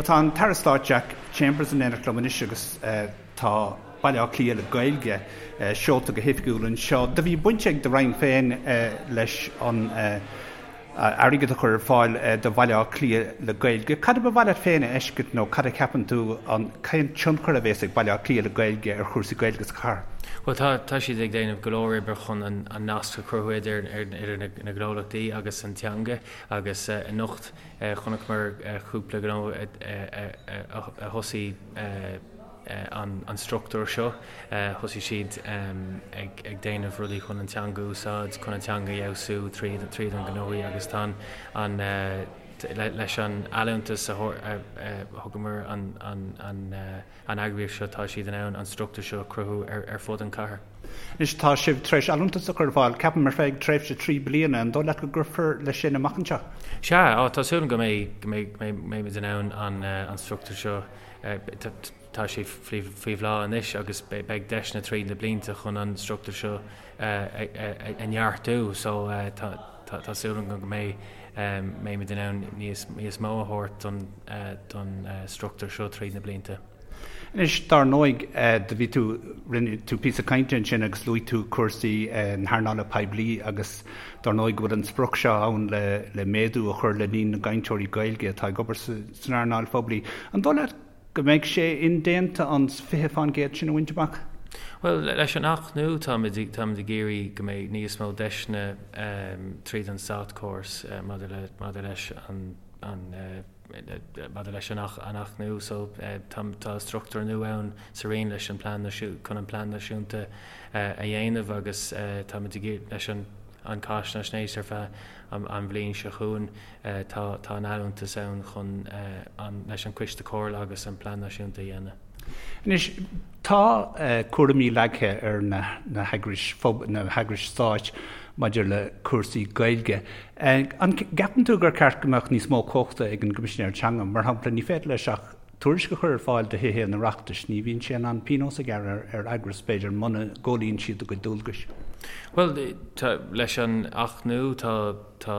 Tá an tAire Stáit Jack Chambers in éineacht liom anois agus tá Baile Átha Cliath le Gaeilge seolta go hoifigiúil anseo. Do bhí baint ag do Roinn féin leis an airgead a chur ar fáil do Bhaile Átha Cliath le Gaeilge. Cad a ba mhaith leat féin a fheiscint nó cad a cheapann tú an cén tionchar a bhéas ag Baile Átha Cliath le Gaeilge ar chúrsaí Gaeilge sa chathair? Bhuel tá tá siad ag déanamh go leor oibre chun an nasc a chruthú idir idir na gnólachtaí agus an teanga agus anocht Chonaiceamar cúpla gnó a thosaigh an struchtúr seo. Thosaigh siad ag déanamh rudaí chun an teanga a úsáid, chun an teanga a fheabhsú tríd an gnóthaí agus tá an leis an allúntas a thugamar an an eagraíocht seo, tá siad in ann an struchtúr seo a chruthú ar fud an chathair. Anois, tá sibh tar éis allúntas a chur ar fáil, ceapaim, ar feadh tréimhse 3 bliana. An dóigh leat go gcuirfear leis sin amach anseo? Sea, tá súil agam go mbeidh, go mbeidh, go mbeimid in ann an an struchtúr seo, tá sé faoi faoi bhláth anois agus beidh deiseanna tríd na blianta chun an struchtúr seo a neartú so tá tá súil agam go mbeidh mbeimid in ann níos níos mó a thabhairt don don struchtúr seo tríd na blianta. Anois, dar ndóigh, do bhí tú, rinne tú píosa cainte ansin agus luaigh tú cúrsaí na hearnála poiblí agus dar ndóigh go bhfuil an sprioc seo ann le le méadú a chur le líon na gcainteoirí Gaeilge atá ag obair san earnáil phoiblí. An dóigh leat go mbeidh sé indéanta an 20% sin a bhaint amach? Bhuel, leis an Acht nua táimid táimid ag iarraidh go mbeidh níos mó deiseanna tríd an státchóras maidir le maidir leis an an maidir leis an Acht nua so tá tá struchtúr nua ann sa Roinn leis an plean chun an plean náisiúnta a dhéanamh agus táimid ag iarraidh leis an an cáinaisnéis ar feadh an bhliain seo chugainn. Tá tá an allúntas ann chun an leis an Coiste Comhairle agus an Plean Náisiúnta a dhéanamh. Anois, tá cúraimí leagtha ar na na heagrais na heagrais stáit maidir le cúrsaí Gaeilge. An gceapann tú gur ceart go mbeadh níos mó cumhachta ag an gCoimisinéir Teanga? Mar shampla, ní féidir leis ach tuairisc a chur ar fáil do Thithe an Oireachtais, ní bhíonn sé in ann pionós a ghearradh ar eagras, b'fhéidir, muna gcomhlíonann siad a gcuid dualgais. Bhuel, tá, leis an Acht nua, tá, tá,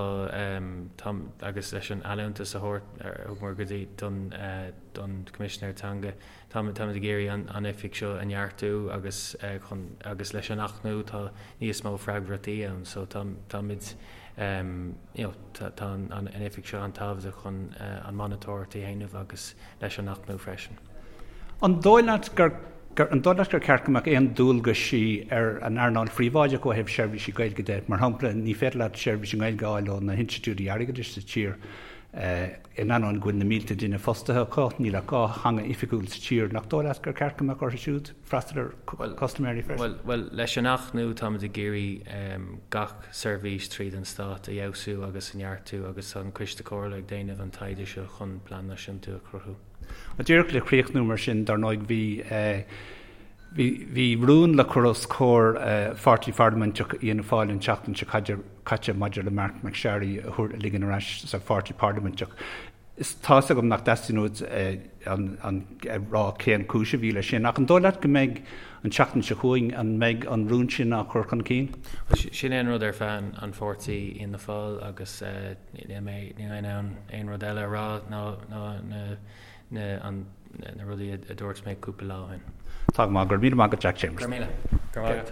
tá, agus leis an allúntas a thabhairt, a thugamar go dtí, don, don Choimisinéir Teanga, táimid, táimid ag iarraidh an, an oifig seo a neartú agus chun, agus leis an Acht nua tá níos mó freagrachtaí ann so tá, táimid, you know, tá an oifig seo an-tábhachtach chun an monatóireacht a dhéanamh agus leis an Acht nua freisin. An dóigh leat gur an dóigh leat gur ceart go mbeadh aon dualgaisí ar an earnáil phríobháideach ó thaobh seirbhísí Gaeilge de? Mar shampla, ní féidir leat seirbhís i nGaeilge a fháil ó na hinstitiúidí airgeadais sa tír in ainneoin go bhfuil na mílte duine fostaithe acu. Níl ach 2 theanga oifigiúil sa tír. Nach dóigh leat gur ceart go mbeadh orthu siúd freastal ar chustaiméirí freisin? Bhuel, leis an Acht nua táimid ag iarraidh gach seirbhís tríd an Stát a fheabhsú agus a neartú agus tá an Coiste Comhairle ag déanamh an taighde seo chun plean náisiúnta a chruthú. Díreach le críochnú mar sin, dar ndóigh bhí bhí bhí rún le cur os comhair pháirtí pharlaiminteach Fhianna Fáil an tseachtain seo caite maidir le Marc MacSharry a thabhairt a ligean ar ais sa pháirtí parlaiminteach. Is tá's agam nach dteastaíonn uait an a rá cén cúis a bhí leis sin, ach an dóigh leat go mbeidh an tseachtain seo chugainn, an mbeidh an rún sin á chur chun cinn? Sin é an rud ar phlean an pháirtí Fhianna Fáil agus níl mé níl mé in ann aon rud eile a rá ná ná na na an na rudaí a dúirt mé cúpla lá ó shin. Tá go maith, go raibh míle maith agat Jack Chambers. Go raibh míle. Go raibh maith agat.